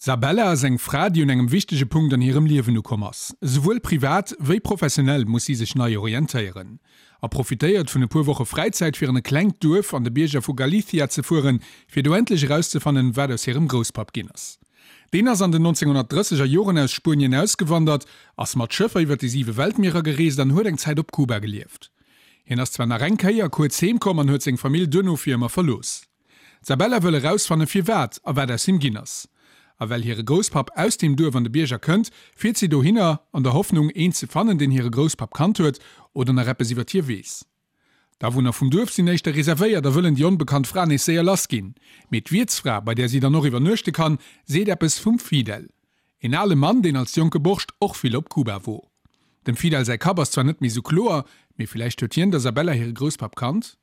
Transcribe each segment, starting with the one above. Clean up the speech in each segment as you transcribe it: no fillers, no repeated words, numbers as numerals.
D'Sabella ass eng Fra, déi un engem wichtege Punkt an hirem Liewen ukomm ass. Esouwuel privat wéi professionell muss si sech nei orientéieren. A profitéiert vun e puer Woche Fräizäit fir an e klengt Duerf an de Bierger vu Galicia ze fueren, fir do endlech erauszefannen, wat aus hirem Grousspapp ginn ass. Deen ass an den 1930 er Joren aus Spuenien ausgewandert, ass mat Schëffer iwwer déi siwe Weltmierer gereest an huet eng Zäit op Kuba gelieft. Hien ass zwar nach eng Kéier kuerz heem komm an huet seng Famill duerno fir ëmmer verlooss. D'Sabella wëll erausfanne firwat a wat aus him ginn ass. A well hire Grousspapp aus deem Duerf an de Bierger kënnt, fiert si dohinner, an der Hoffnung, een ze fannen, deen hire Grousspapp kannt huet oder nach eppes iwwer hie weess. D'Awunner vum Duerf sinn éischter reservéiert a wëllen déi onbekannt Fra nees séier lass ginn. Mee d'Wiertsfra, bei där si dann och iwwernuechte kann, seet eppes vum Fidel. Een ale Mann, deen als jonke Borscht och vill op Kuba wor. Dem Fidel säi Kapp ass zwar net méi sou kloer, mee villäicht huet hien der Sabella hire Grousspapp kannt?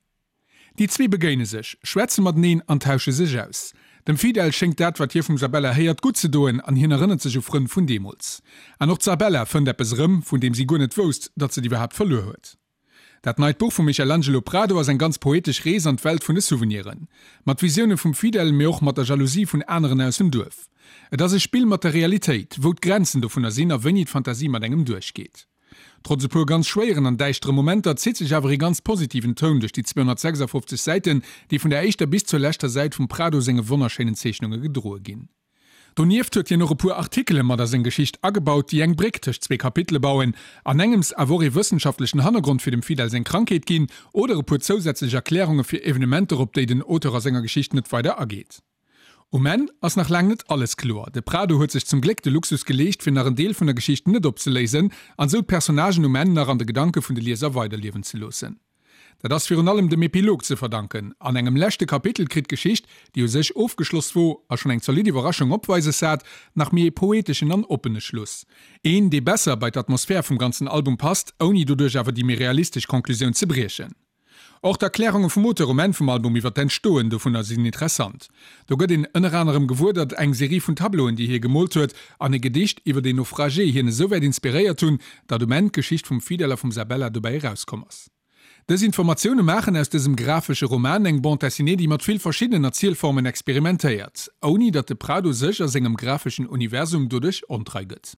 Déi zwee begéine sech, schwätze mateneen an tausche sech aus. Dem Fidel schéngt dat, wat hie vum Sabella héiert, gutt ze doen an hien erënnert sech u Frënn vun deemools. An och d'Sabella fënnt eppes erëm, vun deem si guer net wousst, datt se et iwwerhaapt verluer huet. Dat neit Buch vum Michelangelo Prado ass eng ganz poetesch Rees an d'Welt vun de Souveniren. Mat Visioune vum Fidel, mee och mat der Jalousie vun aneren aus dem Duerf. Et ass e Spill mat der Realitéit, wou d'Grenzen dovunner sinn a wéini d'Fantasie mat engem duerchgeet. Trotz e puer ganz schwéieren an däischtere Momenter zitt sech awer ee ganz positiven Toun duerch déi 256 Säiten, déi vun der éischter bis zur leschter Säit vum Prado senge wonnerschéinen Zeechnunge gedroe ginn. Donieft huet hien och e puer Artikele mat a seng Geschicht agebaut, déi eng Bréck tëscht zwee Kapitele bauen, an engems awer och ee wëssenschaftlechen Hannergrond fir dem Fidel seng Krankheet ginn oder e puer zousätzlech Erklärunge fir Evenementer, op déi den Auteur a senger Geschicht net weider ageet. Um Enn ass nach laang net alles kloer. De Prado huet sech zum Gléck de Luxus geleescht, fir nach en Deel vun der Geschicht net opzeléisen an esou d'Personnagen um Enn nach an de Gedanke vun de Lieser weiderliewen ze loossen. Dat ass virun allem dem Epilog ze verdanken. An engem leschte Kapitel kritt d'Geschicht, déi u sech ofgeschloss wor a schonn eng zolidd Iwwerraschung opweises hat, nach méi ee poeteschen an oppene Schluss. Een, dee besser bei d'Atmosphär vum ganzen Album passt, ouni doduerch awer déi méi realistesch Conclusioun ze briechen. Och d'Erklärunge vum Auteur um Enn vum Album iwwer d'Entstoen dovunner sinn interessant. Do gëtt een ënner anerem gewuer, datt eng Serie vun Tableauen, déi hie gemoolt huet, an e Gedicht iwwer een Naufragé hien esouwäit inspiréiert hunn, datt um Enn d'Geschicht vum Fidel a vum Sabella dobäi erauskomm ass. Dës Informatioune maachen aus dësem grafesche Roman eng Bande dessinée, déi mat vill verschiddenen Erzielformen experimentéiert, ouni datt de Prado sech a sengem grafeschen Universum doduerch ontrei gëtt.